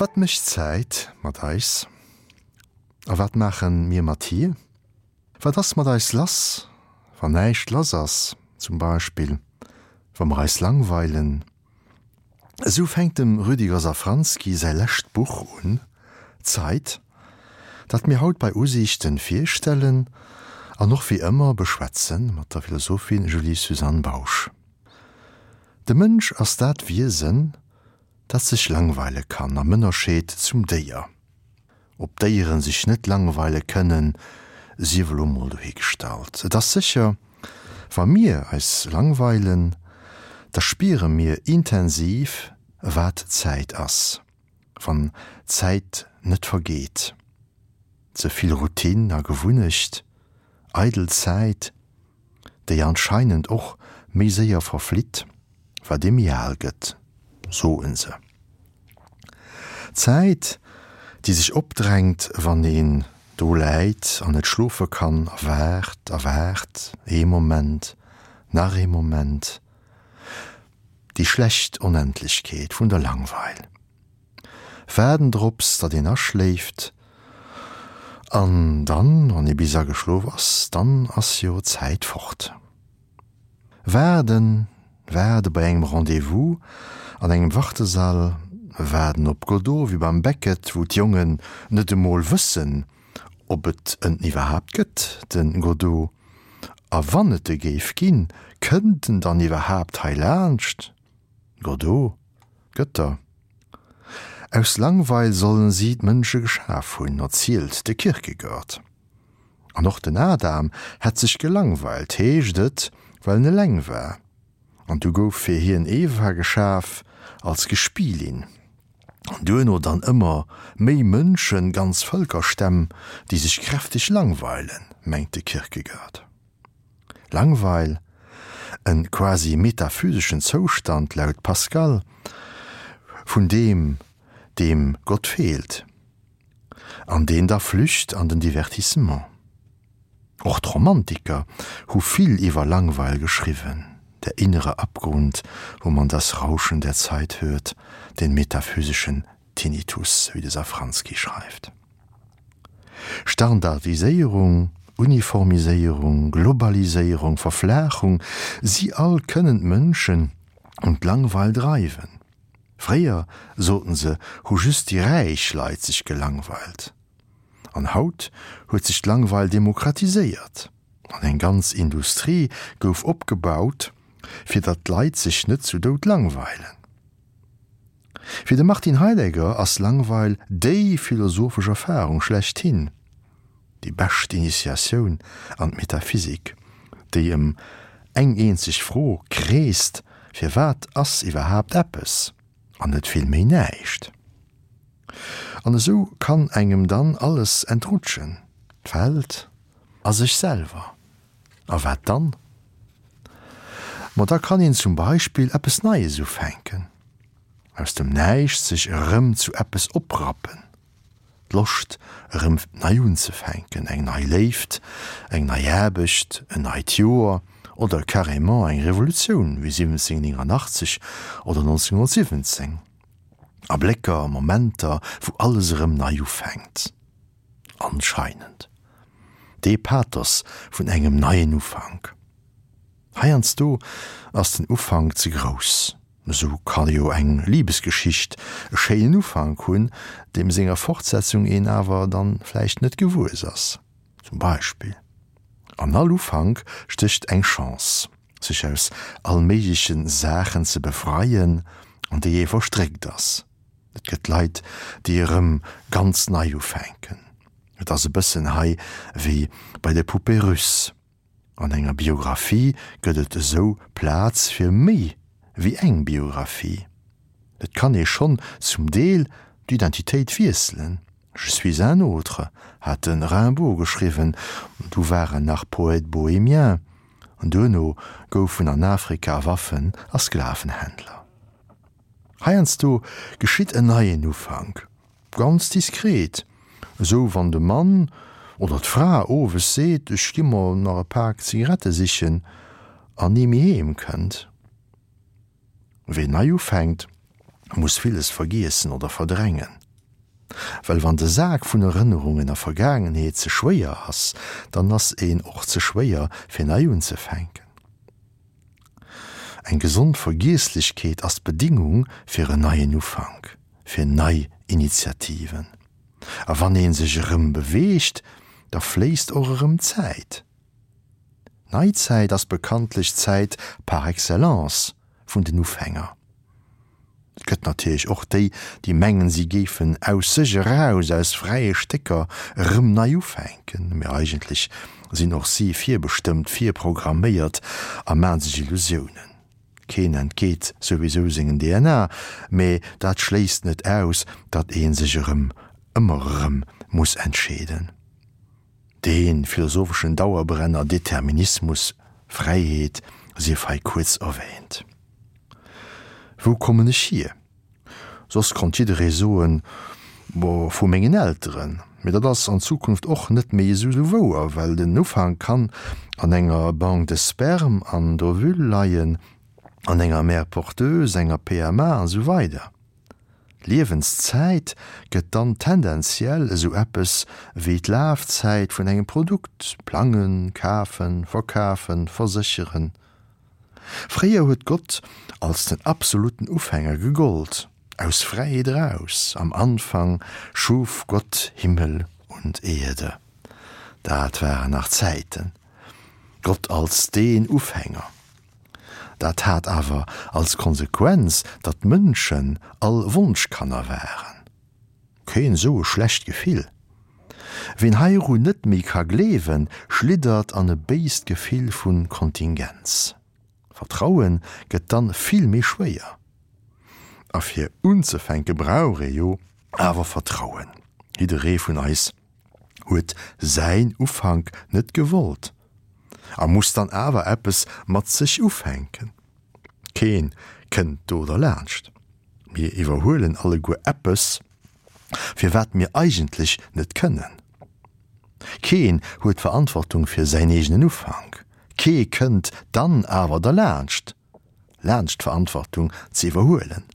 Wat mécht d'Zäit mat eis? A wat maache mir mat hir? Wat ass mat eis lass, wann näischt lass ass, zum Beispill wa mer eis langweilen? Esou fänkt dem Rüdiger Safranski säi lescht Buch un, Zeit, dat mir haut bei Usiichten virstellen an och wéi ëmmer beschwätzen mat der Philosophin Julie-Suzanne Bausch. De Mënsch ass dat Wiesen, dat sech langweile kann, am Ënnerscheed zum Déier. Ob d'Déieren sech net langweile kënnen, sief elo mol dohigestallt. Et ass sécher, wa mir eis langweilen, da spiere mir intensiv, wat Zäit ass, wann d'Zäit net vergeet. Ze vill Routine a Gewunnecht, eidel Zäit, déi anscheinend och méi séier verflitt, wat ee méi al gëtt, soen se. D'Zäit, déi sech opdrängt, wann een do läit an net schlofe kann a waart a waart, ee Moment, nach ee Moment, déi schlecht Onendlechkeet vun der Langweil. Waarden drops, datt een aschléift, an dann, wann ee bis ageschlof ass, dann ass jo d'Zäit fort. Waarden, waarde bei engem Rendez-vous an engem Wartesall, waarden op Godot wéi beim Beckett, wou d'Jongen net emol wëssen, ob et en iwwerhaapt gëtt, de Godot, a wann et e géif ginn, kënnt en dann iwwerhaapt hei laanscht? Godot, Gëtter. Aus Langweil sollen si d'Mënsche geschaf hunn, erzielt de Kierkegaard. An och den Adam hätt sech gelangweilt, heescht et, well en eleng war. An du gouf fir hien Eva geschaf, als Gespielin. An duerno dann ëmmer méi Mënschen, ganz Vëlkerstämm, déi sech kräfteg langweilen, mengt de Kierkegaard. Langweil, en quasi metaphyseschen Zoustand laut Pascal, vun deem, deem Gott feelt, an deen da flücht an den Divertissement. Och d'Romantiker hu vill iwwer Langweil geschriwwen, Der innere Abgrund, wo man das Rauschen der Zeit hört, den metaphysischen Tinnitus, wéi de Safranski schreift. Standardiséierung, Uniformiséierung, Globaliséierung, Verflaachung, si all kënnen d'Mënschen un d'Langweil dreiwen. Fréier, soten se, hu just déi räich Leit sech gelangweilt. An haut huet sech d'Langweil demokratiséiert an eng ganz Industrie gouf opgebaut, fir datt d'Leit sech net zu Doud langweilen. Fir de Martin Heidegger ass Langweil déi philosophesch Erfarung schlechthin, déi bescht Initiatioun an d'Metaphysik, déi ëm eng eenzeg Fro kreest, Firwat ass iwwerhaapt eppes an net vill méi näischt? An esou kann engem dann alles entrutschen, d'Welt a sech selwer. A wat dann? Ma da kann een zum Beispill eppes Neies ufänken, aus dem Näischt sech erëm zu eppes oprappen, d'Loscht erëm nei unzefänken, eng nei Léift, eng nei Aarbecht, en neit Joer oder carrément eng Revolutioun wéi 1789 oder 1917. Ablécker, Momenter, wou alles erëm nei ufänkt. Anscheinend. Dee Pathos vun engem neien Ufank. Heiansdo ass den Ufank ze grouss. Esou ka jo eng Libesgeschicht e schéinen Ufank hunn, deem senger Fortsetzung een awer dann vläicht net gewuess ass. Zum Beispill. An all Ufank stécht eng Chance, sech aus allméigleche Saachen ze befreien, an déi ee verstréckt ass. Et gëtt Leit, déi erëm ganz nei ufänken. Et ass e bëssen hei wéi bei de Poupées russes. An enger Biographie gëtt et esou Plaz fir méi wéi eng Biographie. Et kann ee schonn zum Deel d'Identitéit wiesselen. Je suis un autre, hat de Rimbaud geschriwwen, du war en nach Poète bohémien, an duerno gouf en an Afrika Waffen a Sklavenhändler. Heiansdo geschitt en neien Ufank, ganz diskret, esou wann de Mann oder d'Fra owes seet, ech gi mer nach e Pak Zigarette sichen an ni méi heem kënnt. Ween nei ufänkt, muss villes vergiessen oder verdrängen. Well wann de Sak vun Erënnerungen a Vergaangenheet ze schwéier ass, dann ass een och ze schwéier fir nei unzefänken. Eng gesond Vergiesslechkeet ass d'Bedingung fir en neien Ufank, fir nei Initiativen. A wann ee sech erëm beweegt, da fléisst och erëm Zäit. Neizäit ass bekanntlech d'Zäit par excellence vun den Ufänger. Et gëtt natierlech och déi, déi mengen, si géifen aus sech eraus, aus fräie Stécker erëm nei ufänken, mee eigentlech sinn och si virbestëmmt, virprogramméiert a maan sech Illusiounen. Keen entgeet souwisou sengen DNA, mee dat schléisst net aus, datt ee sech erëm, ëmmer erëm muss entscheeden. Dee philosopheschen Dauerbrenner Determinismus, Fräiheet sief hei kuerz erwähnt. Wou kommen ech hier? Soss konnt jidderee soen, Bo vu mengen Elteren. Mee dat ass an Zukunft och net méi esou wouer, well den Ufank kann an enger Banque de sperme an d'Ovule leien, an enger Mère porteuse, enger PMA an esou weider. D'Liewenszäit gëtt dann tendenziell esou eppes wéi d'Lafzäit vun engem Produkt, plangen, kafen, verkafen, versécheren. Fréier huet Gott als den absoluten Ufänger gegollt, aus Fräiheet eraus, Am Anfang schuf Gott Himmel und Erde. Dat waren nach Zäiten. Gott als deen Ufänger. Dat hat awer als Konsequenz, datt d'Mënschen all Wonschkanner waren. Keen esou e schlecht Gefill. Ween heiru net méi ka gleewen, schliddert an e béist Gefill vu Kontingenz. Vertrauen gëtt dann vill méi schwéier. A fir unzefänke brauch ee jo awer Vertrauen. Jidderee vun eis huet säin Ufank net gewollt a muss dann awer eppes mat sech ufänken. Keen kënnt do derlaanscht. Mir iwwerhuelen alleguer eppes, fir wat mir eigentlech net kënnen. Keen huet d'Verantwortung fir säin eegenen Ufank. Kee kënnt dann awer derlaanscht, laanscht d'Verantwortung ze iwwerhuelen.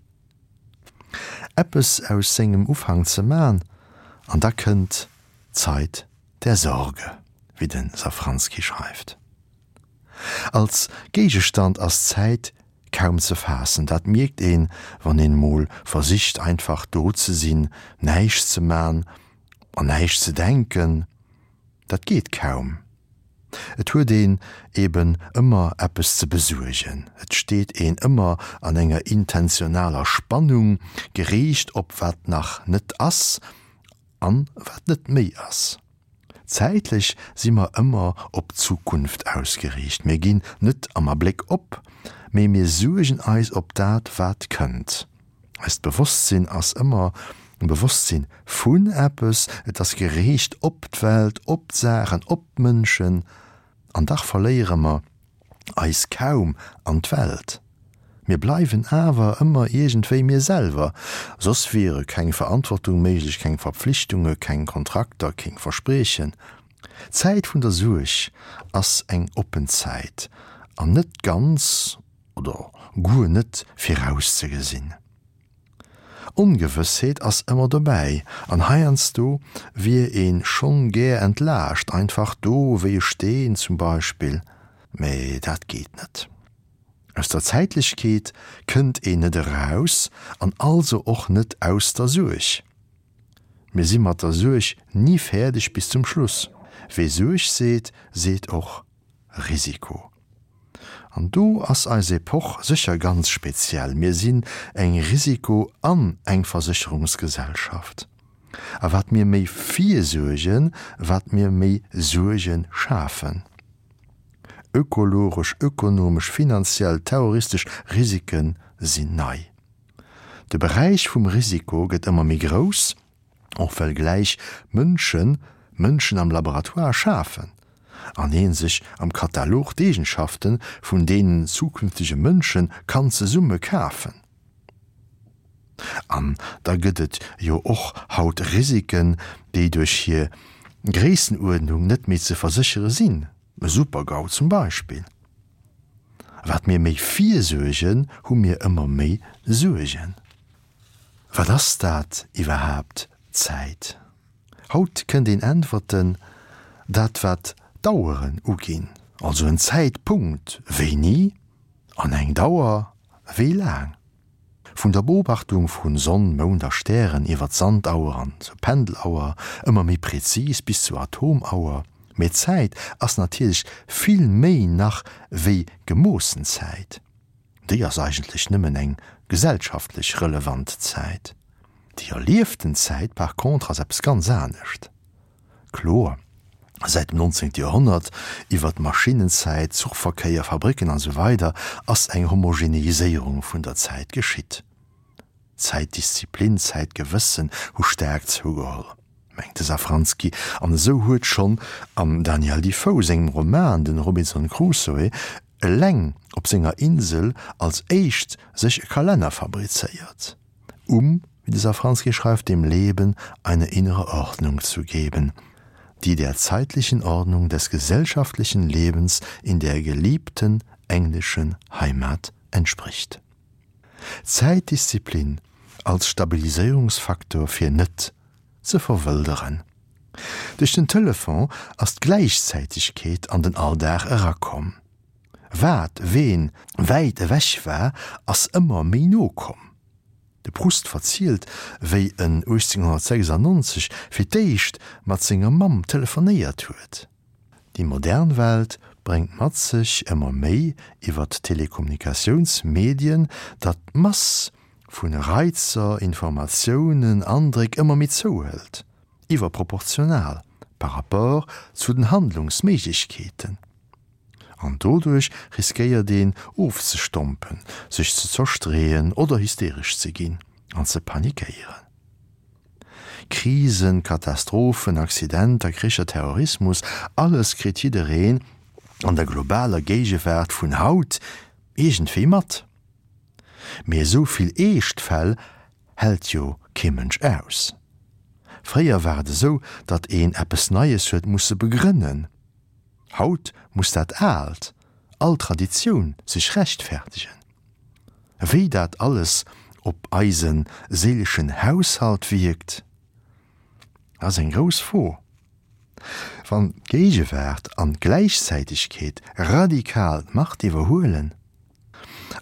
Eppes aus sengem Ufank ze man, an da kënnt d'Zeit der Sorge, wéi de Safranski schreift. Als Géigestand ass d'Zäit kaum ze faassen. Dat mierkt een, wann een mol versicht einfach do ze sinn, näischt ze man an näischt ze denken. Dat geet kaum. Et huet een eben ëmmer eppes ze besuergen, et steet een ëmmer an enger intentionaler Spannung, geriicht op wat nach net ass an wat net méi ass. Zäitlech si mer ëmmer op d'Zukunft ausgeriicht. Mir ginn net am Abléck op, mee mir suergen eis op dat, wat kënnt. Eist Bewosstsinn ass ëmmer e Bewosstsinn vun eppes, et ass geriicht op d'Welt, op d'Saachen, op d'Mënschen. An dach verléiere mer eis kaum an d'Welt. Mir bleiwen awer ëmmer iergendwéi mir selwer, soss wiere keng Verantwortung méiglech, keng Verpflichtunge, keng Kontrakter, keng Verspriechen. D'Zäit vun der Suerg ass eng oppen Zäit an net ganz oder guer net virauszegesinn. Ongewëssheet ass ëmmer dobäi an heiansdo wier een schonn gär entlaascht, einfach do wéi e Steen zum Beispill, mee dat geet net. Aus der Zäitlechkeet kënnt een net eraus an also och net aus der Suerg. Mir si mat der Suerg ni fäerdeg bis zum Schluss. Wee Suerg seet, seet och Risiko. An do ass eis Epoch sécher ganz speziell. Mir sinn eng Risiko an eng Versécherungsgesellschaft. A wat mir méi virsuergen, wat mir méi Suerge schafen. Ökologesch, ökonomesch, finanziell, terroristesch Risike sinn nei. De Beräich vum Risiko gëtt ëmmer méi grouss. Och well gläich Mënschen Mënschen am Laboratoire schafen an ee sech am Katalog d'Eegenschafte vun deenen zukünftege Mënsche kann zesumme kafen. An da gëtt et jo och haut Risiken, déi duerch hir Gréissenuerdnung net méi ze verséchere sinn, e Super-GAU zum Beispill. Wat mir méi virsuergen, hu mir ëmmer méi Suergen. Wat ass dat iwwerhaapt, Zäit? Haut kënnt een äntwerten, dat wat d'Aueren uginn, also en Zäitpunkt, wéini, an eng Dauer, wéi laang. Vun der Beobachtung vu Sonn, Mound a Stären iwwer d'Sandauer an zur Pendelauer, ëmmer méi prezis bis zur Atomauer. Mee Zäit ass natierlech vill méi nach wéi gemoossen Zäit. Déi ass eigentlech nëmmen eng gesellschaftlech relevant Zäit. Déi erlieften Zäit par contre ass eppes ganz anescht. Kloer, säit dem 19. Joerhonnert, iwwer d'Maschinnenzäit, Zuchverkéier, Fabricken an esou weider ass eng Homogeneiséierung vun der Zäit geschitt. Zäitdisziplin, Zäitgewëssen hu staark zougeholl, mengt de Safranski. An esou huet schonn am Daniel Defoe sengem Roman den Robinson Crusoe eleng op senger Insel als éischt sech e Kalenner fabrizéiert. Um, wie de Safranski schreift, dem Leben eine innere Ordnung zu geben, die der zeitlichen Ordnung des gesellschaftlichen Lebens in der geliebten englischen Heimat entspricht. Zäitdisziplin als Stabiliséierungsfaktor fir net ze verwëlderen. Duerch den Telefon ass d'Gläichzäitegkeet an den Alldag erakomm. Wat ween wäit ewech war, ass ëmmer méi no komm. De Proust verzielt, wéi en 1896 fir d'éischt mat senger Mamm telefonéiert huet. Déi modern Welt bréngt mat sech ëmmer méi iwwer d'Telekommunikatiounsmedien, datt d'Mass vu Reizer, Informatiounen, Andréck ëmmer méi zouhëlt, iwwerproportional par rapport zu den Handlungsméiglechkeeten. An doduerch riskéiert een ofzestompen, sech ze zerstreeën oder hysteresch ze ginn an ze panikéieren. Krisen, Katastrophen, Accidenter, Kricher, Terrorismus, alles kritt jiddereen an der globaler Géigewaart vun haut iergendwéi mat. Mee esou vill eescht Fäll hält jo kee Mënsch aus. Fréier war et esou, datt een eppes Neies huet musse begrënnen. Haut muss dat Aalt, all Traditioun sech rechtfertegen. Wéi dat alles op eise séileschen Haushalt wierkt, ass eng grouss Fro. Wann d'Géigewaart an d'Gläichzäitegkeet radikal d'Macht iwwerhuelen,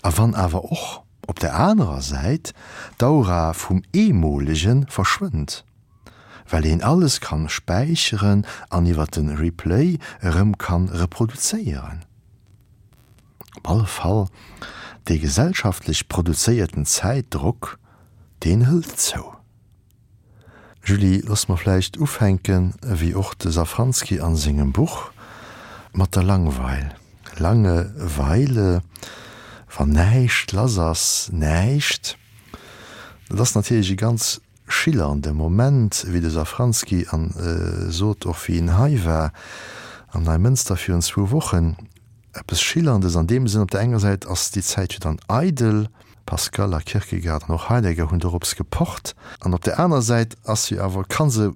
a wann awer och op der anerer Säit d'Aura vum Eemolege verschwënnt, well een alles kann späicheren an iwwer den Replay erëm kann reproduzéieren. Op alle Fall, dee gesellschaftlech produzéierten Zäitdrock, deen hëlt zou. Julie, looss mer vläicht ufänken, wéi och de Safranski an sengem Buch, mat der Langweil. Langeweile, wann näischt lass ass, näischt, dat ass natierlech e ganz schillernd e Moment, wéi de Safranski an sot, och wéi en hei war am Neimënster virun zwou Wochen, eppes Schillerndes an deem Sënn, op der enger Säit ass déi Zäit jo dann eidel, Pascal a Kierkegaard an och Heidegger hunn dorops gepocht, an op der aner Säit ass se awer, ka se,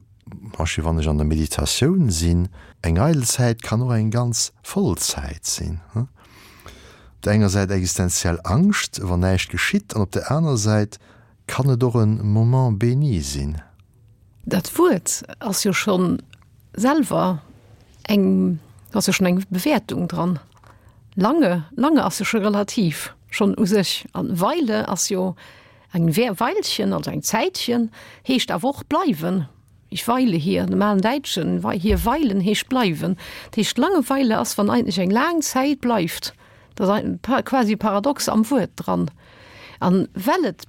beispill wann ech an der Meditatioun sinn, eng eidel Zäit kann och eng ganz voll Zäit sinn. Op der enger Säit existenziell Angscht, wann näischt geschitt, an op der aner Säit Kann et och en Moment béni sinn? Dat Wuert ass jo scho selwer eng, do ass jo schonn eng Bewäertung dran. Lange, lange ass jo scho relativ, schonn u sech. An Weile ass jo eng Weilchen, also eng Zäitchen, heescht awer och bleiwen. Ich weile hier, am alen Däitschen, hier weilen heescht bleiwen. Dat heescht, Langeweile ass, wann eigentlech eng laang Zäit bleift. Dat ass quasi e Paradox am Wuert dran. An well et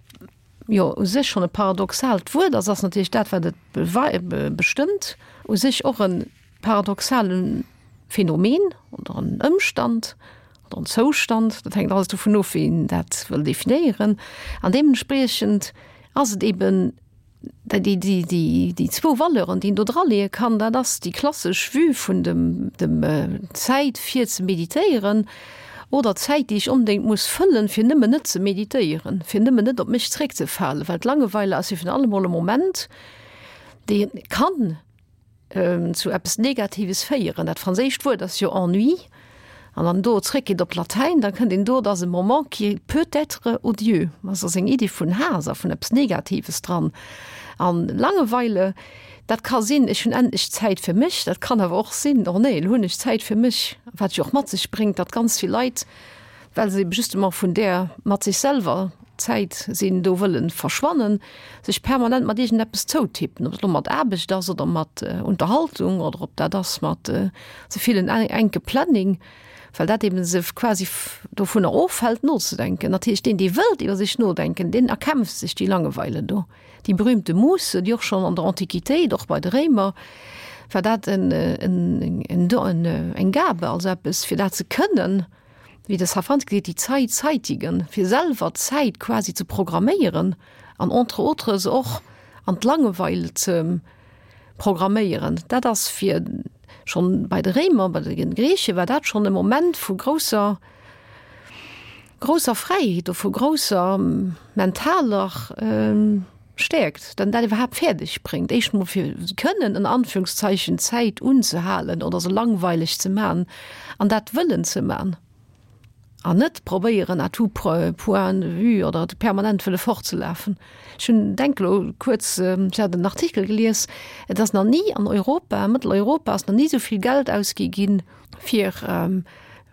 jo u sech schonn e paradoxaalt Wuert ass, ass natierlech dat, wat et bestëmmt, u sech och e paradoxale Phänomen oder en Ëmstand oder en Zoustand. Dat hänkt alles dovun of, wéi een dat wëll definéieren. An deementspriechend ass et eben Déi zwou Valeuren, déi een do draleeë kann, dat ass déi klassesch Vue vun dem Zäit fir ze meditéieren oder d'Zäit, déi ech onbedéngt muss fëllen, fir nëmmen net ze meditéieren, fir nëmmen net op mech zréckzefalen. Well d'Langeweile ass jo virun allem emol e Moment, dee kann zu eppes Negatives féieren. Dat franséischt Wuert ass jo Ennui. An wann do zréckgeet op d'Latäin, da kënnt een do, et ass e moment qui peut être odieux. Also ass eng Iddi vun Haass a vun eppes Negatives dran. An Langeweile, dat ka sinn, ech hunn endlech Zäit fir mech, dat kann awer och sinn, oh nee, elo hunn ech Zäit fir mech, wat jo och mat sech bréngt, datt ganz vill Leit, well se eben justement vun där mat sech selwer Zäit sinn, do wëllen verschwannen, sech permanent mat iergendeppes zoutippen, ob et elo mat Aarbecht ass oder mat Unterhaltung oder ob dat ass mat ze villen enke Planning, well dat eben se quasi dovunner ofhält nozedenken. Natierlech deen, dee wëllt iwwer sech nodenken, deen erkämpft sech déi Langeweile do. Déi berühmte Musse, déi och schonn an der Antiquitéit, och bei de Réimer, war dat en, en, en, en, eng Gabe, also eppes fir dat ze kënnen, wéi de Safranski seet, die Zeit zeitigen, fir selwer d'Zäit quasi ze programméieren an entre autres och an d'Langeweil ze programméieren. Dat ass fir schonn bei de Réimer, bei de Grieche war dat schonn e Moment vu grousser, grousser Fräiheet oder vu grousser mentaler Stäerkt, datt en dat iwwerhaapt fäerdeg bréngt, éischt emol fir kënnen ënner Anführungszeichen d'Zäit unzehalen oder se langweileg ze man an dat wëllen ze man an net probéieren à tout point de vue oder permanent wëlle fortzelafen. Ech hunn, denk elo kuerz, ech hat en Artikel gelies, et ass nach ni an Europa, Mëtteleuropa ass nach ni esou vill Geld ausgi ginn fir,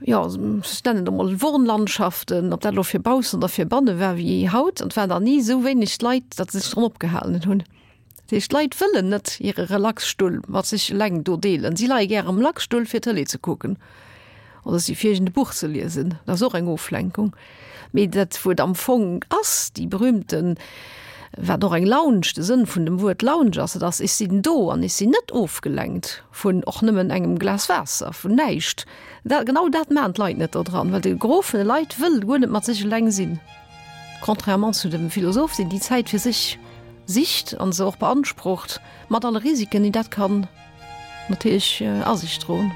jo, ech nennen et emol Wohnlandschaften, ob dat elo fir baussen oder fir banne war, wéi haut. An et waren nach ni esou wéineg Leit, datt se sech dran opgehalen hunn. Dat heescht, d'Leit wëllen net hire Relaxstull mat sech eleng do deelen. Si leie gär am Relaxstull, fir Tëlee ze kucken oder si fir iergend e Buch ze liesen. Dat ass och eng Oflenkung. Mee dat, wou et am Fong ass, déi berühmten, wat och eng Lounge, de Sënn vun dem Wuert Lounge ass, dat ass, ech sinn do an ech sinn net ofgelenkt vun och nëmmen engem Glas Waasser, vun näischt. Dat, genau dat maachen d'Leit net do dran, well de Gros vun de Leit wëll guer net mat sech eleng sinn. Contrairement zu dem Philosoph, deen déi Zäit fir sech sicht an se och beansprucht, mat alle Risiken, déi dat kann natierlech a sech droen.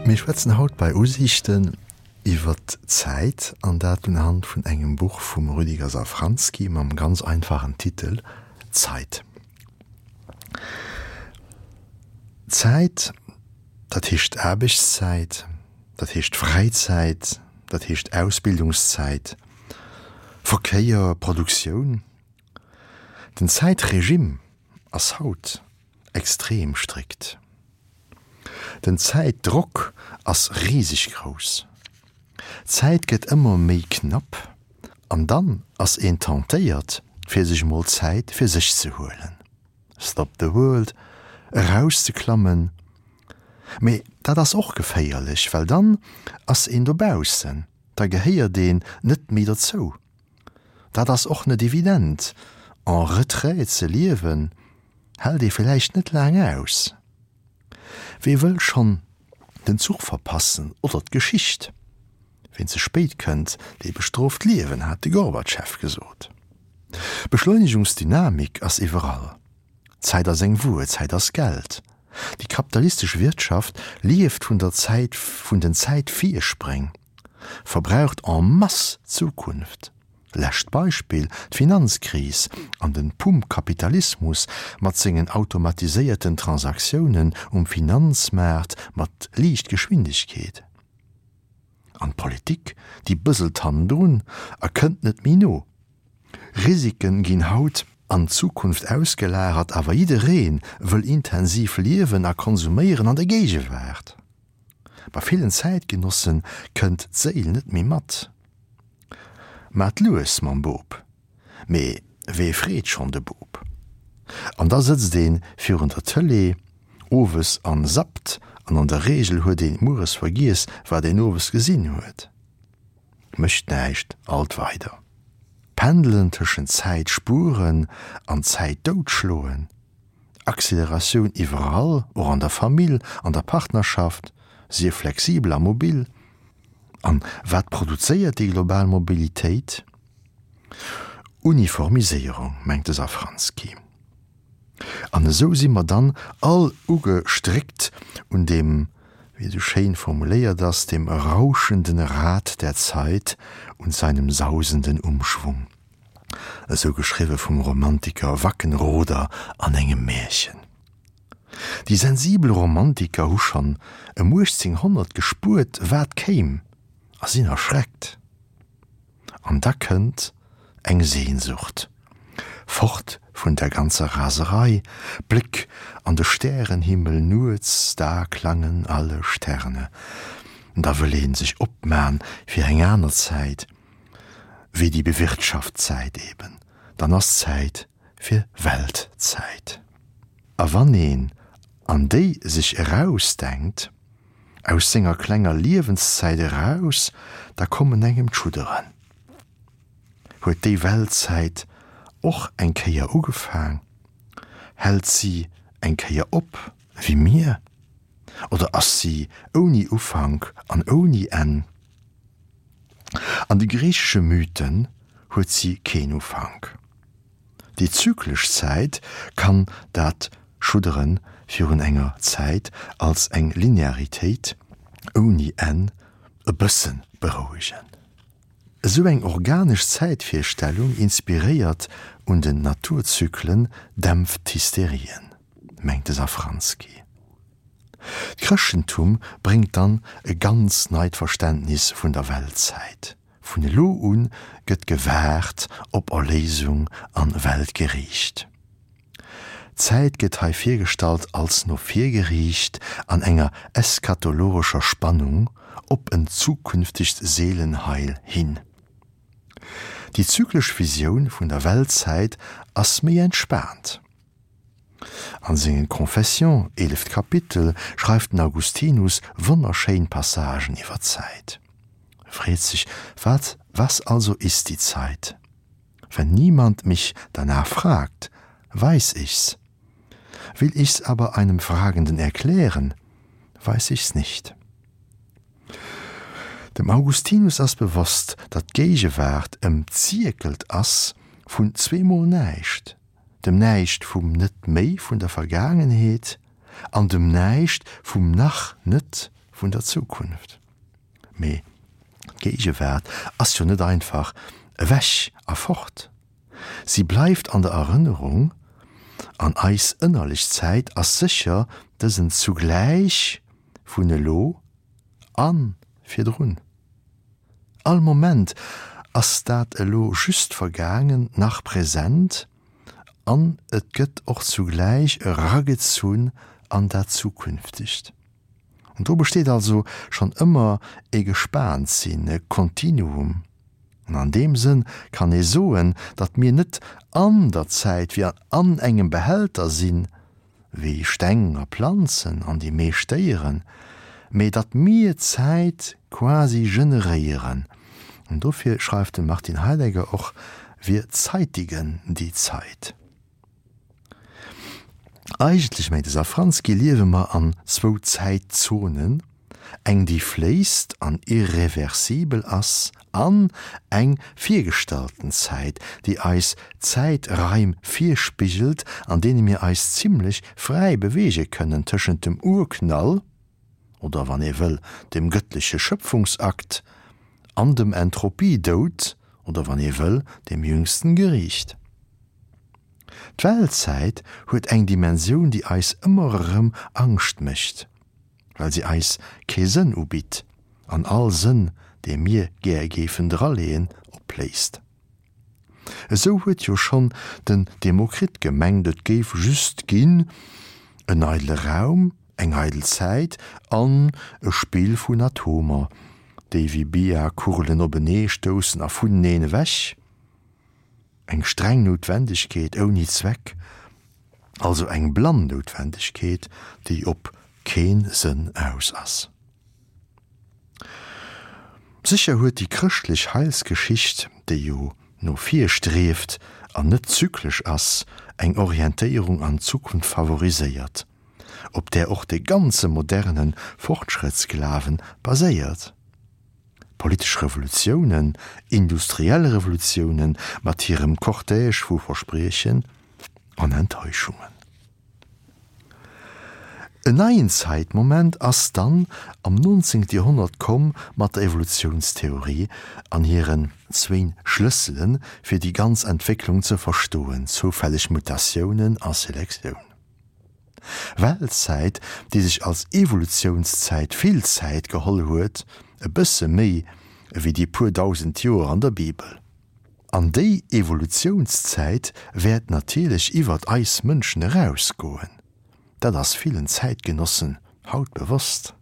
Mir schwätzen haut bei Usiichten iwwer d'Zäit, an dat unhand vun engem Buch vum Rüdiger Safranski mam ganz einfachen Titel Zeit. Zäit, dat heescht Aarbechtszäit, dat heescht Fräizäit, dat heescht Ausbildungszäit, Verkéier, Produktioun. Den Zäitregime ass haut extrem strikt. Den Zäitdrock ass riseg grouss. D'Zäit gëtt ëmmer méi knapp an dann ass een tentéiert fir sech mol Zäit fir sech ze huelen. Stop the world, erauszeklammen. Mee dat ass och geféierlech, well dann ass een dobaussen, da gehéiert een net méi dozou. Dat ass och net evident, en retrait ze liewen hält ee villäicht net laang aus. Wee wëll schonn den Zuch verpassen oder d'Geschicht? Ween ze spéit kënnt, dee bestrooft d'Liewen, hat de Gorbatschew gesot. Beschleunegungsdynamik ass iwwerall. Zäit ass eng Wuer, Zäit ass Geld. Déi kapitalistesch Wirtschaft lieft vun der Zäit, vun den Zäitvirspréng, verbraucht en masse d'Zukunft. Lescht Beispill, d'Finanzkris an den Pumpkapitalismus mat sengen automatiséierten Transaktiounen um Finanzmaart mat Liichtgeschwindegkeet. An d'Politik, déi bëselt hannendrun a kënnt net méi no. Risiken ginn haut an d'Zukunft ausgelagert, awer jidderee wëll intensiv liewen a konsuméieren an der Géigewaart. Bei villen Zäitgenossen kënnt d'Séil net méi mat. Maat lues mam Bop. Mee wee freet schonn de Bop? An da sëtzt een virun der Tëlee owes an zappt an an der Reegel huet een mueres vergiess wat een owes gesinn huet. Mécht näischt, alt weider. Pendelen tëschent Zäit spueren an Zäit doutschloen. Acceleratioun iwwerall, och an der Famill, an der Partnerschaft, sief flexibel a mobil. An wat produzéiert déi global Mobilitéit? Uniformiséierung, mengt de Safranski. An esou si mer dann all ugestréckt un deem, wéi et esou schéin formuléiert ass, dem rauschenden Rad der Zeit und seinem sausenden Umschwung. Esou geschriwwe vum Romantiker Wackenroder an engem Märchen. Déi sensibel Romantiker hu schonn ëm 1800 gespuert, wat kéim, a sinn erschreckt. An da kënnt eng Sehnsucht, fort vun der ganzer Raserei, Bléck an de Stärenhimmel nuets, da klangen alle Sterne. Da wëll ee sech opman fir eng aner Zäit, wéi déi bewirtschaft Zäit eben, dann ass Zäit fir Weltzäit. A wann een an déi sech erausdenkt, aus senger klenger Liewenszäit eraus, da kommen engem d'Schudderen. Huet déi Weltzäit och eng Kéier ugefaang? Hält si eng Kéier op, wéi mir? Oder ass si ouni Ufank an ouni Enn? An de griichesche Mythen huet si keen Ufank. Déi zyklesch Zäit kann dat Schuddere virun enger Zäit als eng Linearitéit ouni Enn e bësse berouegen. Esou eng organesch Zäitvirstellung, inspiréiert un den Naturzyklen, dämpft d'Hysterien, mengt de Safranski. D'Chrëschtentum bréngt dann e ganz neit Verständnis vun der Weltzäit. Vun elo un gëtt gewaart op Erléisung an Weltgeriicht. D'Zäit gëtt hei virgestallt als no vir geriicht an enger eschatologescher Spannung op en zukünftegt Seelenheil hin. Déi zyklesch Visioun vun der Weltzäit ass méi entspaant. An sengen Confessions, eeleft Kapitel, schreift den Augustinus wonnerschéin Passagen iwwer d'Zäit. E freet sech, Wat, was also ist die Zeit? Wenn niemand mich danach fragt, weiß ich's. Will ich's aber einem Fragenden erklären, weiß ich's nicht. Dem Augustinus ass bewosst, datt d'Géigewaart ëmzierkelt ass vun zweemol Näischt, dem Näischt vum Net-méi vun der Vergaangenheet an dem Näischt vum Nach-net. vun der Zukunft. Mee d'Géigewaart ass jo net einfach ewech a fort. Si bleift an der Erënnerung, an eis ënnerlech Zäit ass sécher dësen Zugläich vun elo a virdrun. All Moment ass dat elo just Vergaangent nach present an et gëtt och zugläich eragezunn an dat Zukünftegt. An do besteet also schonn ëmmer e Gespaantsinn, e Kontinuum. An an deem Sënn kann ee soen, datt mir net an der Zäit wéi an engem Behälter sinn, wéi Steng a Planzen an déi meescht Déieren, mee datt mir d'Zäit quasi generéieren. An dofir schreift de Martin Heidegger och, Wir zeitigen die Zeit. Eigentlech, mengt de Safranski, liewe mer an zwou Zäitzonen, eng déi fléisst an irreversibel ass an eng virgestallten Zäit, déi eis Zäitraim virspigelt, an deene mir eis zimlech fräi beweege kënnen tëschent dem Urknall, oder wann ee wëll, dem gëttleche Schëpfungsakt, an dem Entropiedoud, oder wann ee wëll, dem jüngsten Geriicht. D'Weltzäit huet eng Dimensioun, déi eis ëmmer erëm Angscht mécht, well se eis kee Sënn ubitt an all Sënn, dee mir gär géifen draleeën, opléist. Esou huet jo schonn den Demokrit gemengt, et géif just ginn en eidele Raum, eng eidel Zäit an e Spill vun Atomer, déi wéi Billardkugelen openee stoussen a vuneneen ewech. Eng streng Noutwendegkeet ouni Zweck, also eng blann Noutwendegkeet, déi op keen Sënn aus ass. Sécher huet déi chrëschtlech Heilsgeschicht, déi jo no vir strieft an net zyklesch ass, eng Orientéierung an d'Zukunft favoriséiert, op där och de ganze moderne Fortschrëttsglawen baséiert. Politesch Revolutiounen, industriell Revolutiounen mat hirem Cortège vu Verspriechen an Enttäuschungen. En neien Zäitmoment ass dann am 19. Joerhonnert komm mat der Evolutiounstheorie an hiren zwéin Schlëssele fir déi ganz Entwécklung ze verstoen, zoufälleg Mutatiounen a Selektioun. Weltzäit, déi sech als Evolutiounszäit vill Zäit geholl huet, e bësse méi ewéi déi puer dausend Joer an der Bibel. An déi Evolutiounszäit wäert natierlech iwwert eis Mënschen erausgoen. Dat ass villen Zäitgenossen haut bewosst.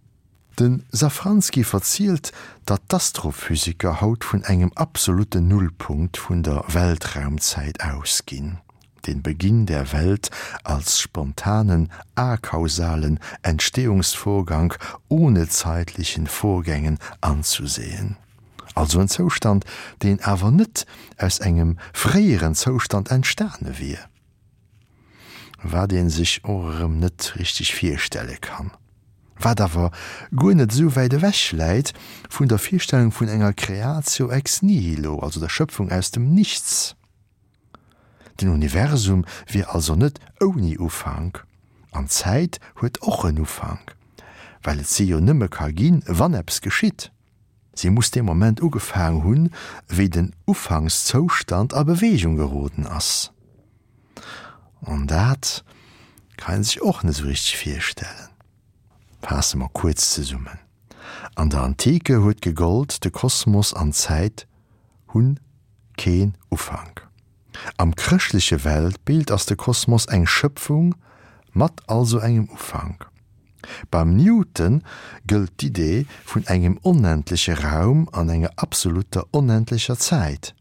De Safranski verzielt, datt d'Astrophysiker haut vun engem absolutten Nullpunkt vun der Weltraumzäit ausginn, den Beginn der Welt als spontanen, akausalen Entstehungsvorgang ohne zeitlichen Vorgängen anzusehen. Also en Zoustand, deen awer net aus engem fréieren Zoustand entstane wier. Wat ee sech och erëm net richteg virstelle kann. Wat awer guer net esou wäit ewech läit vun der Virstellung vun enger creatio ex nihilo, also der Schöpfung aus dem Nichts. Den Universum wier also net ouni Ufank, an d'Zäit huet och en Ufank, well et se jo nëmme ka ginn, wann eppes geschitt. Si muss dee Moment ugefaang hunn, wéi den Ufankszoustand a Beweegung geroden ass. An dat kann een sech och net esou richteg virstellen. Faasse mer kuerz zesummen, An der Antike huet gegollt, de Kosmos an d'Zäit hunn keen Ufank. Am chrëschtleche Weltbild ass de Kosmos eng Schëpfung mat also engem Ufank. Beim Newton gëllt d'Idee vun engem onendleche Raum an enger absolutter onendlecher Zäit.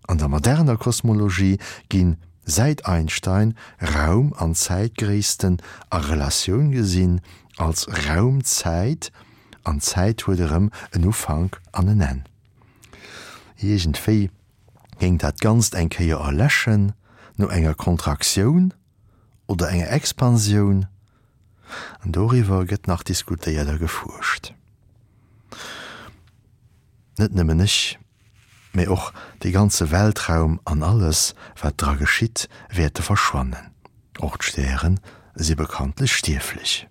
An der moderner Kosmologie ginn, säit Einstein, Raum an Zäitgréissten a Relatioun gesinn als Raum-Zäit, an d'Zäit huet erëm en Ufank an en Enn. Iergendwéi géing dat Ganzt eng Kéier erläschen, no enger Kontraktioun oder enger Expansioun, an doriwwer gëtt nach diskutéiert a gefuerscht. Net nëmmen ech, mee och dee ganze Weltraum an alles, wat dra geschitt, wäerte verschwannen. Och d'Stäre si bekanntlech stierflech.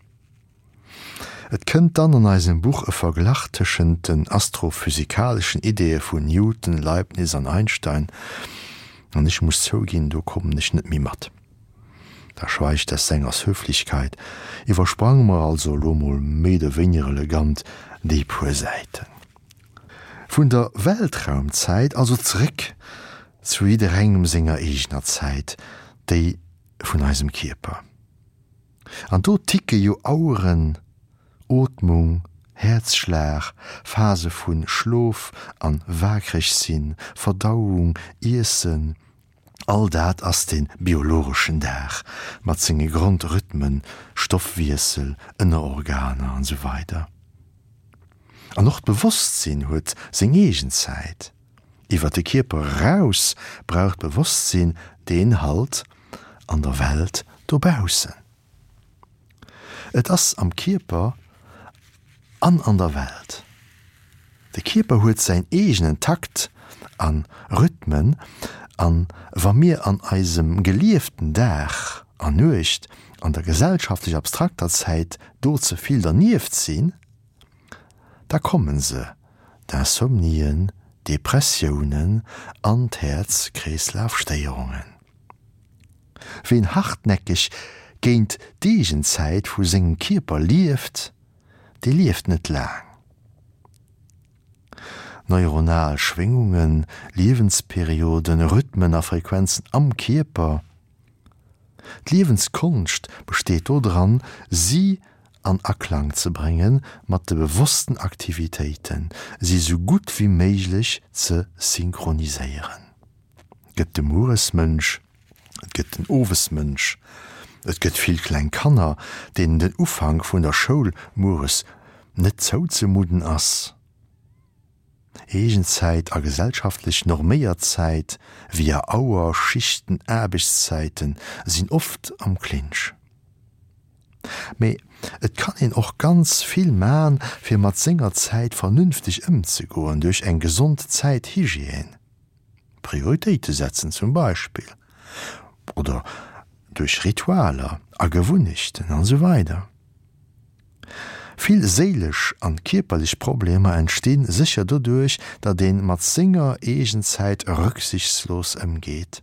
Et kënnt dann an eisem Buch e Verglach tëschent den astrophysikaleschen Ideeë vun Newton, Leibniz an Einstein, an ech muss zouginn, do kommen ech net méi mat. Da schweigt des Sängers Höflichkeit. Iwwersprange mer also elo mol méi oder wéiniger elegant déi puer Säiten. Vun der Weltraumzäit also zeréck zu jidderengem senger eegener Zäit, déi vun eisem Kierper. An do ticke jo Aueren, Ootmung, Häerzschlag, Phase vu Schlof an waakreg sinn, Verdauung, Iessen, all dat ass de biologeschen Dag mat senge Grondrhythmen, Stoffwiessel, Ënnerorganer an esou weider. An och d'Bewosstsinn huet seng eegen Zäit. Iwwer de Kierper eraus brauch d'Bewosstsinn deen Halt an der Welt dobaussen. Et ass am Kierper an an der Welt. De Kierper huet säin eegenen Takt a Rhythmen an wa mir an eisem gelieften Dag a Nuecht an der gesellschaftlech abstrakter Zäit do ze vill dernieft sinn, da kommen se, d'Insomnien, d'Depressiounen an d'Häerz-Kreeslaf-Stéierungen. Ween hartnäckeg géint d'Eegenzäit vu sengem Kierper lieft, dee lieft net laang. Neuronal Schwéngungen, Liewensperioden, Rhythmen a Frequenzen am Kierper. D'Liewenskonscht besteet dodran, si an Aklang ze brénge mat de bewossten Aktivitéiten, si sou gutt wéi méiglech ze synchroniséieren. Et gëtt de Mueresmënsch, et gëtt den Owesmënsch, et gëtt vill kleng Kanner, deenen den Ufank vun der Schoul mueres net zouzemudden ass. Eegenzäit a gesellschaftlech norméiert Zäit, via Auer, Schichten, Aarbechtszäiten, sinn oft am Clinch. Mee et kann een och ganz vill man, fir mat senger Zäit vernünfteg ëmzegoen, duerch eng gesond Zäithygiène. Prioritéite setzen zum Beispill, oder duerch Ritualer a Gewunnechten an esou weider. Vill séilesch an kierperlech Problemer entstinn sécher doduerch, datt een mat senger Eegenzäit rücksichtslos ëmgeet.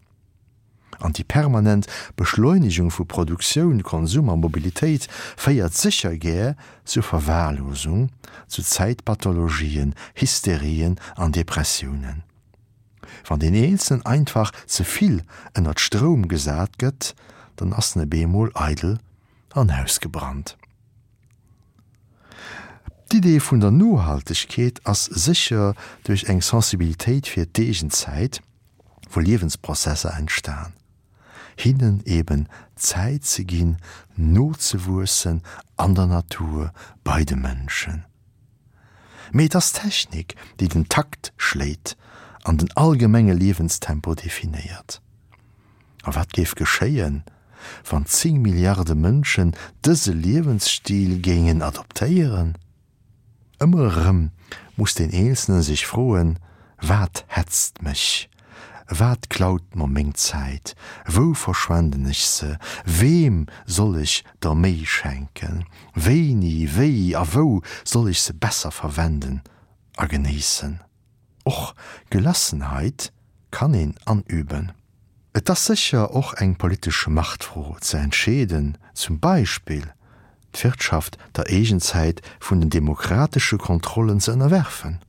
An déi permanent Beschleunegung vu Produktioun, Konsum a Mobilitéit féiert sécher gär zur Verwahrlosung, zu Zäitpathologien, Hysterien an Depressiounen. Wann deen Eenzelnen einfach ze vill ënnert Stroum gesat gëtt, dann ass en e beemol eidel an ausgebrannt. D'Idee vun der Nohaltegkeet ass sécher duerch eng Sensibilitéit fir d'eegen Zäit, wou Liewensprozesser entstan, hinnen eben Zäit ze ginn, nozewuessen an der Natur, bei de Mënschen. Mee et ass d'Technik, déi den Takt schléit an den allgemenge Liewenstempo definéiert. A wat géif geschéien, wann 10 Milliarde Mënschen dëse Liewensstil géingen adoptéieren? Ëmmer erëm muss deen Eenzelne sech froen, Wat hetzt mech? Wat klaut mer meng Zäit? Wou verschwenden ech se? Weem soll ech der méi schenken? Wéini, wéi a wou soll ech se besser verwenden a genéissen? Och Gelassenheit kann een anüben. Et ass sécher och eng politesch Machtfro ze entscheeden, zum Beispill d'Wirtschaft der Eegenzäit vun den demokratesche Kontrollen ze ënnerwerfen,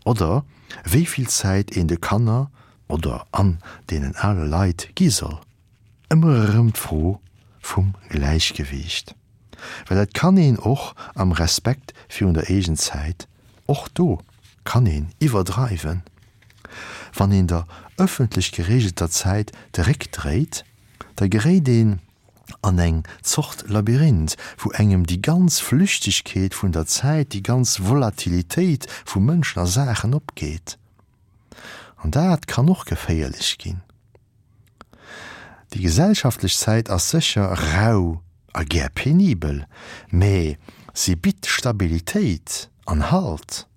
oder wéi vill Zäit een de Kanner oder an deenen ale Leit gi soll. Ëmmer erëm d'Fro vum Gläichgewiicht, well et kann een och am Respekt virun der Eegenzäit, och do kann een iwwerdreiwen, wann een der ëffentlech geregelter Zäit de Réck dréit, da geréit een an eng Zort Labyrinth, wou engem déi ganz Flüchtegkeet vun der Zäit, déi ganz Volatilitéit vu Mënschen a Saachen opgeet. An dat kann och geféierlech ginn. Déi gesellschaftlech Zäit ass sécher rau a gär penibel, mä si bitt Stabilitéit an Halt.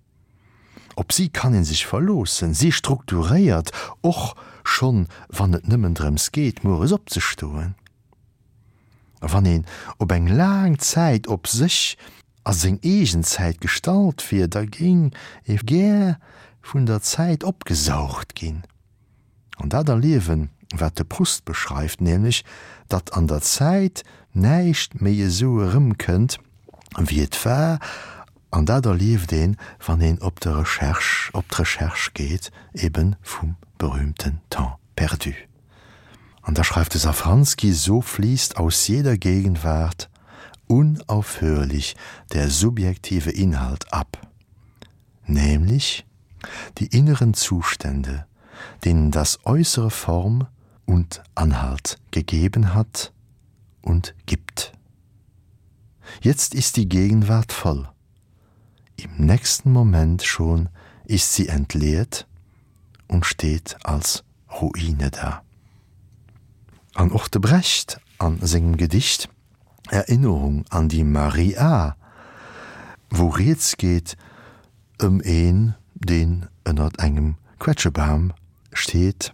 Op si kann ee sech verloossen, si strukturéiert, och schonn wann et nëmmen drëms geet, mueres opzestoen. A wann een op eng laang Zäit op sech. a seng eegen Zäit gestallt wier, da géing e gär vun der Zäit opgesaugt ginn. An dat erliewen, wat de Proust beschreift, nämlech datt an der Zäit näischt méi esou erëmkënnt, wéi et war, an dat erlieft een, wann een op de Recherche, op d'Recherche geet, ebe vum berühmten Temps perdu. An da schreift de Safranski, So fließt aus jeder Gegenwart unaufhörlich der subjektive Inhalt ab, nämlich die inneren Zustände, denen das Äußere Form und Anhalt gegeben hat und gibt. Jetzt ist die Gegenwart voll. Im nächsten Moment schon ist sie entleert und steht als Ruine da. An och de Brecht an sengem Gedicht Erinnerung an die Marie A. Wou rieds geet ëm een, deen ënnert engem Quetschebam steet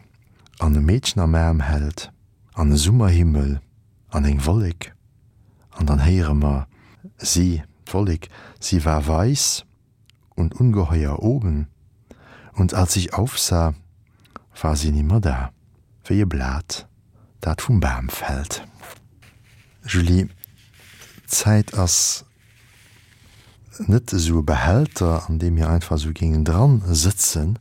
an e Meedchen am Aarm hält an e Summerhimmel an eng Wollek an dann héiere mer si, d'Wollek, sie war weiß und ungeheuer oben und als ich aufsah, war sie nimmer da, wéi e Blat, dat vum Bam fält. Julie, d'Zäit ass net esou e Behälter, an deem mir einfach esou géingen dran sëtzen,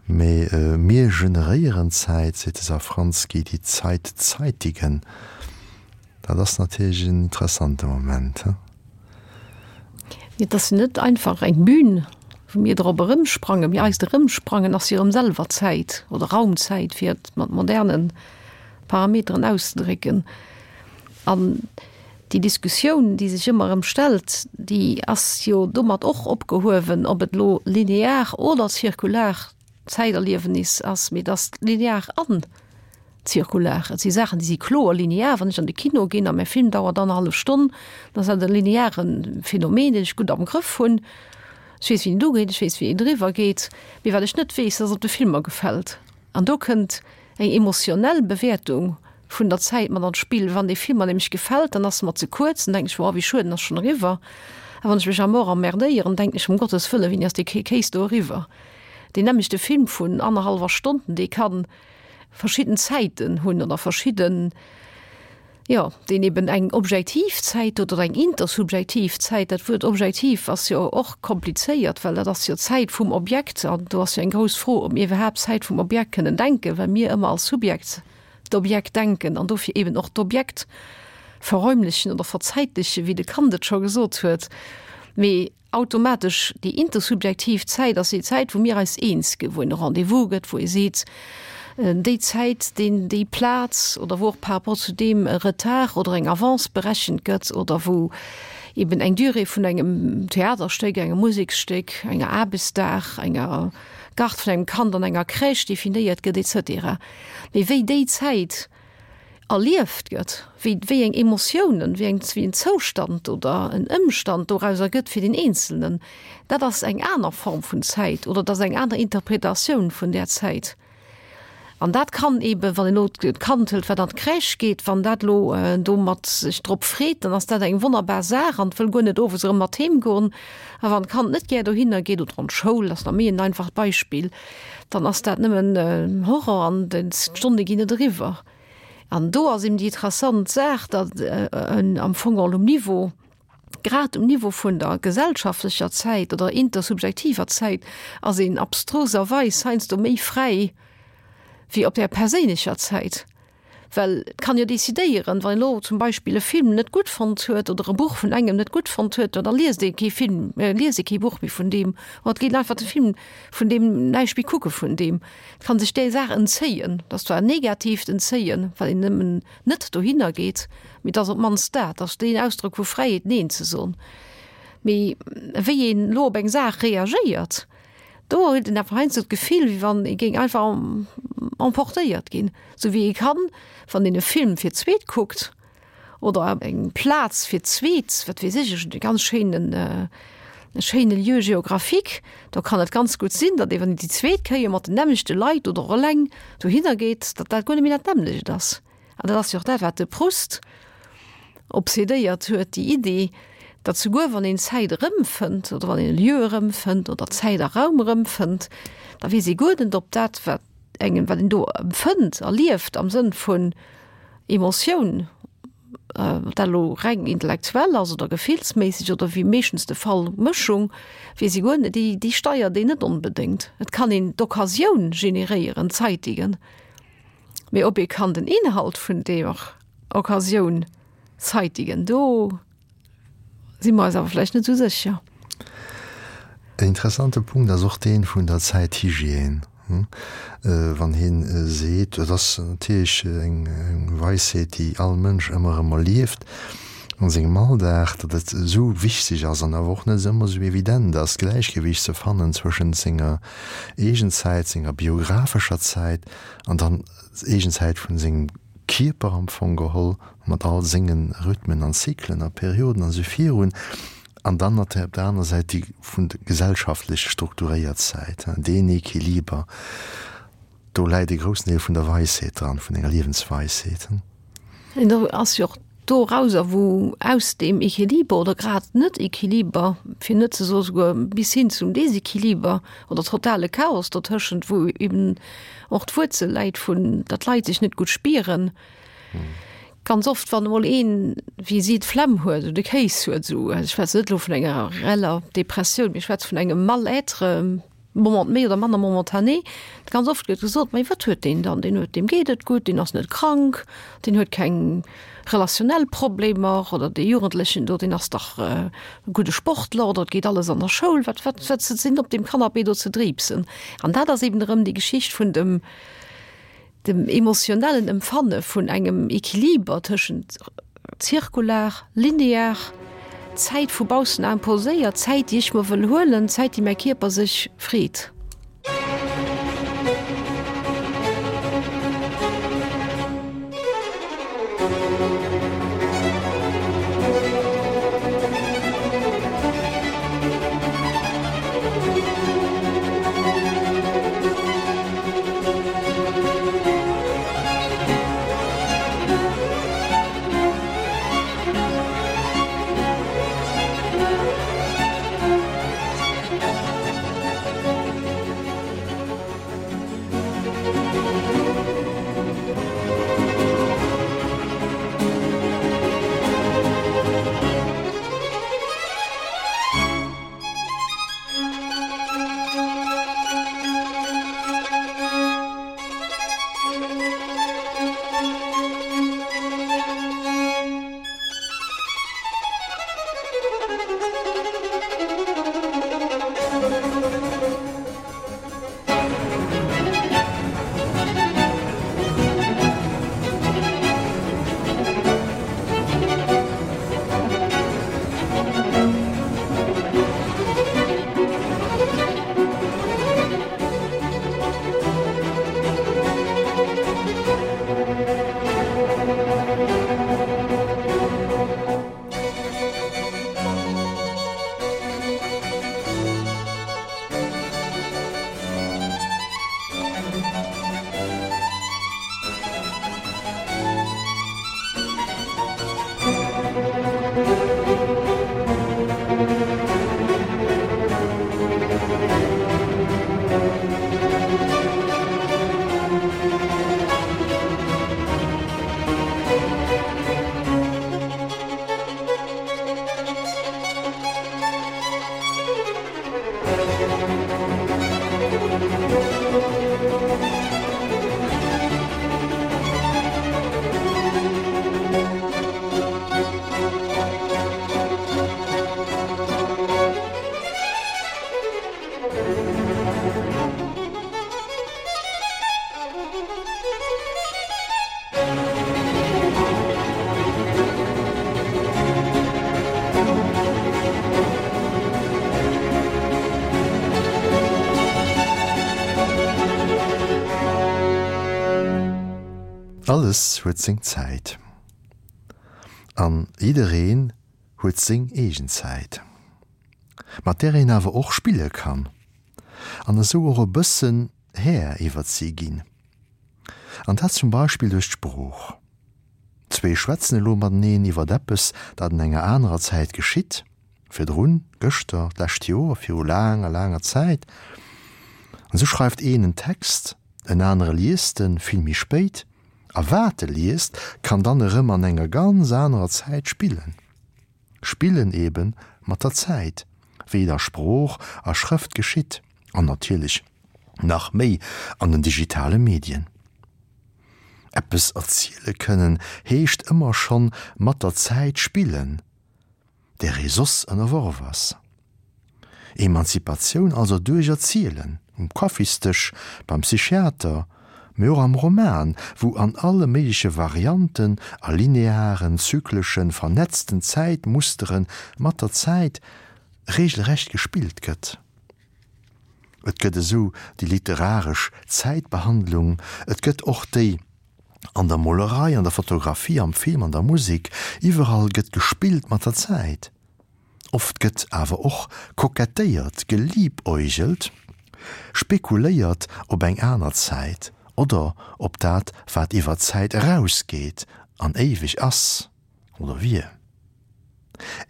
mee mir generéieren Zäit, seet de Safranski, die Zeit zeitigen. Dat ass natierlech en interessante Moment, he? Et ass jo net einfach eng Bühn, wou mir drop erëmsprangen, mee eist Erëmsprangen ass jo erëm selwer Zäit oder Raumzäit, fir et mat moderne Parameteren auszedrécken. An déi Diskussioun, déi sech ëmmer erëm stellt, déi ass jo domat och opgehuewen, ob et elo linear oder zirkular Zäiterliewenis ass, mee et ass linear an zirkular. Et si Saachen, déi si kloer linear. Wann ech an de Kino ginn a mäi Film dauert annerhallef Stonn, dann ass dat e lineare Phänomen, deen ech gutt am Grëff hunn. Ech weess, wéi en ugeet, ech weess, wéi en eriwwer geet. Mee wat ech net weess, dat ass, ob de Film mer gefält. An do kënnt eng emotionell Bewäertung vun der Zäit mat an d'Spill. Wann dee Film mer nämlech gefält, dann ass e mer ze kuerz, dann denken ech, Wow, wéi schued, en ass schonn eriwwer. A wann ech mech à mort emmerdéieren, denken ech, Um Gottes Wëllen, wéini ass dee Kéis do eriwwer? Deen nämmlechte Film vun annerhallwer Stonn, dee ka verschidden Zäiten hunn oder verschidden, jo, deen eben eng objektiv Zäit huet oder eng intersubjektiv Zäit. Dat Wuert objektiv ass jo och komplizéiert, well dat ass jo d'Zäit vum Objekt an do ass jo eng grouss Fro, ob mir iwwerhaapt Zäit vum Objekt kënnen denken, well mir ëmmer als Subjekt d'Objekt denken an dofir eben och d'Objekt verräumlechen oder verzäitlechen, wéi de Kant et scho gesot huet. Mee Automatesch déi intersubjektiv Zäit ass déi Zäit, wou mir eis eens ginn, wou een e Rendez-vous gëtt, wou ee seet, déi Zäit, deen, déi Plaz oder wou och par rapport zu deem e Retard oder eng Avance berechent gëtt oder wou eben eng Durée vun engem Theaterstéck, engem Museksstéck, enger Aarbechtsdag, enger Garde vun engem Kand an enger Crèche definéiert gëtt et cetera. Mee wéi déi Zäit erlieft gëtt, wéi wéi eng Emotiounen, wéi eng wéi en Zoustand oder en Ëmstand dorauser gëtt fir den Eenzelnen, dat ass eng aner Form vun Zäit oder dat ass eng aner Interpretatioun vun där Zäit. An dat kann eeben, wann een elo d'Kand hëlt, wat an d'Crèche geet, wann dat elo domat sech drop freet, dann ass dat eng wonnerbar Saach an wëll guer net owes erëm mat heem goen. A wann d'Kand net gär dohinner geet oder an d'Schoul, ass nach méi en einfacht Beispill, dann ass dat nëmmen Horror an d'Stonne ginn net eriwwer. An do ass eben déi interessant Saach, datt am Fong geholl um Niveau, grad um Niveau vun der gesellschaftlecher Zäit oder intersubjektiver Zäit, ass een abstruserweis heiansdo méi fräi wéi op där perséinlecher Zäit. Well et kann jo decidéieren, wann een elo zum Beispill e Film net gutt fonnt huet oder e Buch vun engem net gutt fonnt huet, da liest ee kee Film, liest ee kee Buch méi vun deem oder et geet einfach de Film vun deem näischt méi kucke vun deem. Et kann sech där Saach entzéien. Dat ass zwar en negatiivt Entzéien, well een nëmmen net dohinner geet, mee et ass op d'mannst dat, et ass deen Ausdrock vu Fräiheet, Neen ze soen. Mee wéi een elo op eng Saach reagéiert, Do huet een awer heiansdo d'Gefill, wéi wann ee géing einfach emportéiert ginn. Sou wéi ee kann, wann een e Film fir d'zweet kuckt oder eng Plaz fir d'zweet, wat weess ech, ech hunn e ganz schéinen, e schéine Lieu géographique, do kann et ganz gutt sinn, datt ee wann een déi zweet Kéier mat den nämmlechte Leit oder och eleng dohinner geet, datt dat guer net méi dat nämmlecht ass. An dat ass jo och dat, wat de Proust obsedéiert huet, déi Idee, Datt souguer wann een Zäit erëmfënnt oder wann een e Lieu erëmfënnt oder Zäit a Raum erëmfënnt, da weess ee guer net, ob dat, wat engem, wat een do empfënnt, erlieft am Sënn vun Emotioun, ob dat elo reng intellektuell ass oder gefillsméisseg oder wéi meeschtens de Fall Mëschung, weess ee guer net, déi, déi steiert een net onbedéngt. Et kann een d'Occasioun generéieren, zeitigen, mee ob ee kann den Inhalt vun deeër Occasioun zeitigen, do si mer eis awer vläicht net esou sécher. En interessante Punkt ass och dee vun der Zäithygiène, wann hien seet, dat ass natierlech eng Weisheet, déi all Mënsch ëmmer erëm erlieft a sengem Alldag, datt et esou wichteg ass an awer och net ëmmer esou evident ass, d'Gläichgewicht ze fannen zwëschent senger Eegenzäit, senger biographescher Zäit an dann d'Eegenzäit vun sengem Kierper am Fong geholl, mat all sengen Rhythmen an Zyklen a Perioden an esou virun, an dann op der aner Säit déi vun der gesellschaftlech strukturéiert Säit, deen Equiliber, do läit e groussen Deel vun der Weisheet dran, vun enger Liewensweisheet. An do ass jo och dorauser, wou aus deem Equiliber oder grad Net-Equiliber, fir net ze soe souguer bis hin zum Desequiliber oder totale Chaos dotëschent, wou eben och d'Wuerzel läit vun, datt d'Leit sech net gutt spieren. Ganz oft, wann emol een, wéi si, d'Flemm huet oder de Kéis huet, esou, also ech schwätzen net elo vun enger reeller Depressioun, mee ech schwätze vun engem Mal-être, Moment méi oder manner momentané, ganz oft gëtt gesot, Mee wat huet deen dann? Deen huet, deem geet et gutt, deen ass net krank, deen huet keng relationell Problemer oder dee Jugendlechen do, deen ass dach e gudde Sportler oder et geet alles an der Schoul. Wat, wat, wat sinn op deem Canapé do ze driibsen? An dat ass eben erëm déi Geschicht vun dem, dem emotionellen Empfanne vun engem Equiliber tëschent zirkular, linear, Zäit vu baussen imposéiert, Zäit déi ech mer wëll huelen, Zäit déi mäi Kierper sech freet. Alles huet seng Zäit. An jiddereen huet seng eegen Zäit, mat där een awer och spille kann an esou och e bëssen Här iwwert si ginn. An dat zum Beispill duerch d'Sprooch. Zwee schwätzen elo mateneen iwwert eppes, dat an enger anerer Zäit geschitt. Virdrun, gëschter, d'lescht Joer, viru laanger, laanger Zäit. An esou schreift een en Text, en anere liest en vill méi spéit, a wat e liest, kann dann erëm an enger ganz anerer Zäit spillen. Spillen ebe mat der Zäit, wéi et a Sprooch a Schrëft geschitt, an natierlech nach méi an den digitale Medien. Eppes erziele kënnen heescht ëmmer schonn mat der Zäit spillen, där ee soss ënnerworf ass. Emanzipatioun also duerch Erzielen, um Kaffisdësch, beim Psychiater, mee och am Roman, wou an alle méigleche Varianten a linearen, zykleschen, vernetzten Zäitmustere mat der Zäit regelrecht gespillt gëtt. Et gëtt esou déi literaresch Zäitbehandlung, et gëtt och déi an der Molerei, an der Fotografie, am Film, an der Musek, iwwerall gëtt gespillt mat der Zäit. Oft gëtt awer och kokettéiert, geliebäugelt, spekuléiert op eng aner Zäit oder op dat, wat iwwer d'Zäit erausgeet an éiweg ass oder wier.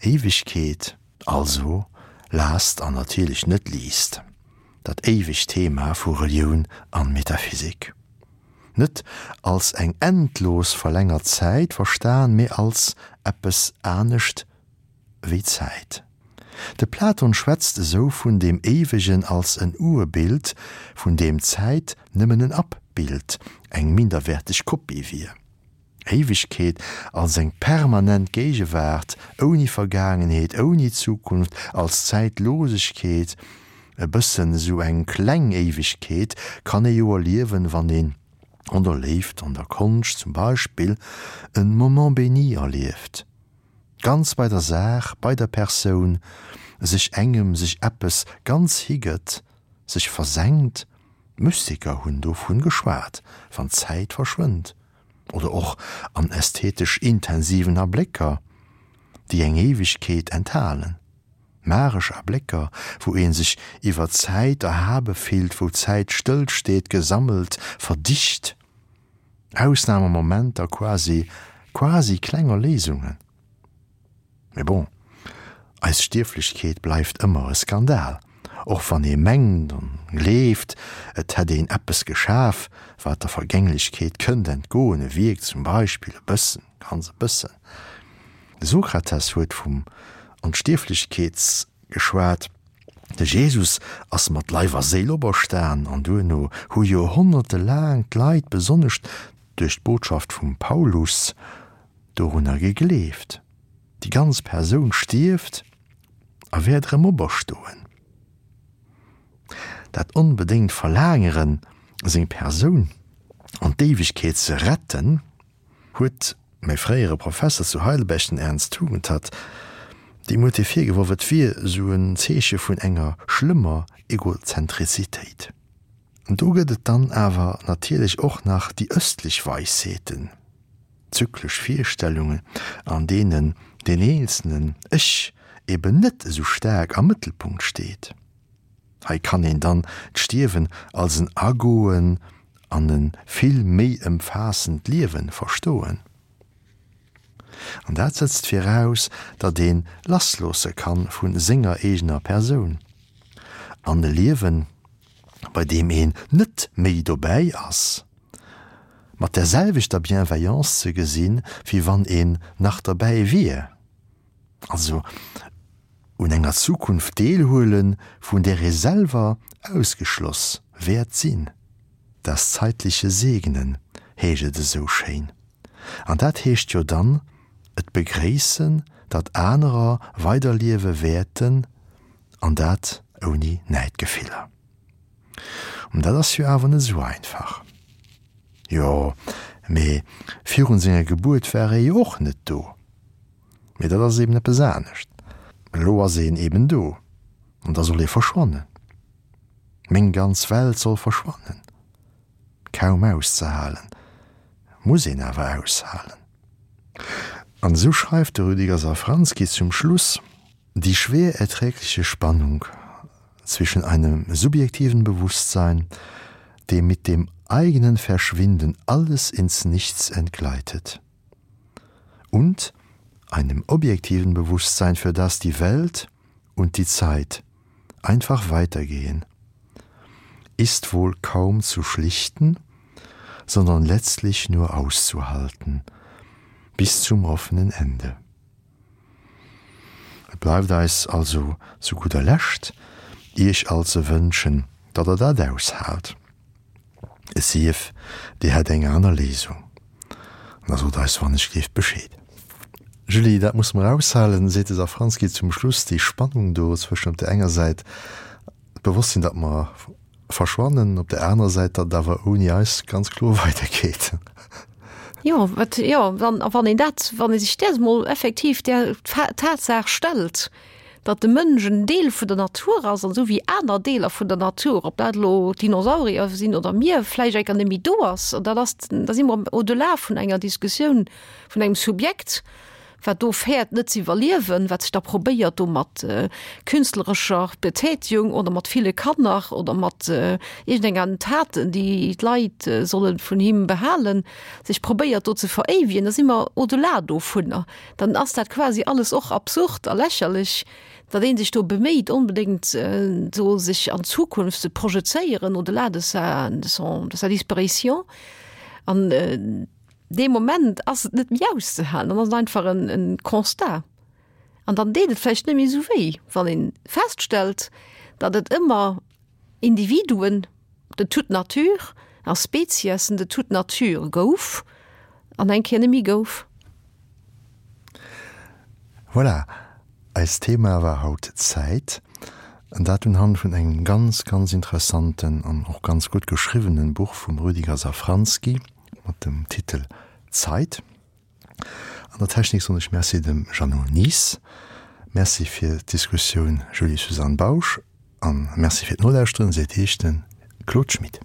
Éiwegkeet also, last an natierlech net least, dat éiwegt Thema vu Relioun an Metaphysik. Net als eng endlos verlängert Zäit verstan, mee als eppes anescht wéi Zäit. De Platon schwätzt esou vun deem Éiwegen als en Urbild, vun deem d'Zäit nëmmen en Abbild, eng minderwäerteg Kopie wier. Éiwegkeet als eng permanent Géigewaart, ouni Vergaangenheet, ouni Zukunft, als Zäitlosegkeet, e bëssen esou eng kleng Éiwegkeet kann ee jo erliewen, wann een an der Léift, an der Konscht zum Beispill, en Moment béni erlieft. Ganz bei der Saach, bei der Persoun, sech engem, sech eppes ganz higëtt, sech versenkt, d'Mystiker hunn dovun geschwat, wann d'Zäit verschwënnt, oder och an ästhetesch intensiven Ablécker, déi eng Éiwegkeet enthalen, magesch Ablécker, wou ee sech iwwer d'Zäit erhabe fillt, wou d'Zäit stëllsteet, gesammelt, verdicht. Ausnamemomenter, quasi, quasi kleng Erléisungen. Mee bon, eis Stierflechkeet bleift ëmmer e Skandal, och wann ee mengt an gleeft, et hätt een eppes geschaf, wat der Vergänglechkeet kënnt entgoen, e Wierk zum Beispill, e bëssen, ganz e bëssen. De Sokrates huet vum Onstierflechkeets geschwat. De Jesus ass mat Leif a Séil operstan an duerno hu joerhonnerte laang d'Leit, besonnesch duerch d'Botschaft vum Paulus, dorunner gegleeft, déi ganz Persoun stierft a wäert erëm operstoen. Dat onbedéngt Verlaangeren, seng Persoun an d'Éiwegkeet ze retten, huet mäi fréiere Professer zu Heidelberg, den Ernst Tugendhat, deem huet hie virgeworf, et wier esou en Zeeche vun enger schlëmmer Egozentrizitéit. An do gëtt et dann awer natierlech och nach déi ëstlech Weisheeten, zyklesch Virstellungen, an deenen deen eenzelnen Ech eben net esou staark am Mëttelpunkt steet. Hei kann een dann d'Stierwen als en Agoen an e vill méi ëmfaassend Liewen verstoen. An dat setzt viraus, datt een lassloosse kann vu senger eegener Persoun an e Liewen, bei deem een net méi dobäi ass, mat där selwechter Bienveillance ze gesinn, wéi wann een nach derbäi wier. Also un enger Zukunft deelhuelen, vun där ee selwer ausgeschloss wäert sinn. Das zeitliche Segnen heescht et esou schéin. An dat heescht jo dann, et begréissen, datt anerer weiderliewe wäerten, an dat ouni Näidgefiller. An dat ass jo awer net esou einfach. Jo, mee virun senger Gebuert war ee jo och net do. Mee dat ass eben eppes anescht. Elo ass een eben do, an da soll ee verschwannen. Meng ganz Welt soll verschwannen. Kaum auszehalen, muss een awer aushalen. An esou schreift de Rüdiger Safranski zum Schluss, Die schwer erträgliche Spannung zwischen einem subjektiven Bewusstsein, dem mit dem eigenen Verschwinden alles ins Nichts entgleitet, und. Einem objektiven Bewusstsein, für das die Welt und die Zeit einfach weitergehen, ist wohl kaum zu schlichten, sondern letztlich nur auszuhalten, bis zum offenen Ende. Et bleift eis also zu gudder Lescht, Iech all ze wënschen, datt Der dat aushaalt. Et sief, Dir hätt eng aner Léisung, da sot eis wannechgleeft Bescheed. Julie, dat musse mer aushalen, seet de Safranski zum Schluss, déi Spannung do zwëschen op där enger Säit d'Bewosstsinn, datt mer verschwannen, op där anerer Säit, datt et awer ouni eis ganz kloer weidergeet. Jo, wat, jo, wann, a wann een dat, wann ee sech där emol effektiv där Tatsaach stellt, datt de Mënsch en Deel vun der Natur ass, an esou wéi aner Deeler vun der Natur, ob dat elo d'Dinosaurier sinn oder mir, vläicht enker net méi do ass, an dat ass, da si mer au-delà vun enger Diskussioun vun engem Subjekt, wat do fäert net ze iwwerliewen, wat sech da probéiert do mat künstlerescher Betätigung oder mat ville Kanner oder mat iergendenger Taten, déi d'Leit solle vun him behalen, sech probéiert do ze veréiwegen, da si mer au-delà dovunner. Dann ass dat quasi alles och absurd a lächerlech, datt ee sech do beméit onbedéngt do sech an d'Zukunft ze projezéieren au-delà de sa, de son, de sa disparition. An Dee Moment ass et net méi auszehalen, dann ass et einfach en, en Constat. An dann deet et vläicht net méi esou wéi, wann ee feststellt, datt et ëmmer Individuen de toute nature a Speziessen de toute nature gouf an eng Kéier net méi gouf. Voilà, eist Thema war haut d'Zäit, an dat unhand vun engem ganz, ganz interessanten an och ganz gutt geschriwwenen Buch vum Rüdiger Safranski. Mat dem Titel Zeit. An der Technik soen ech Merci dem Jeannot Nies. Merci fir d'Diskussioun Julie-Suzanne Bausch an Merci fir d'Nolauschteren seet Iech de Claude Schmit.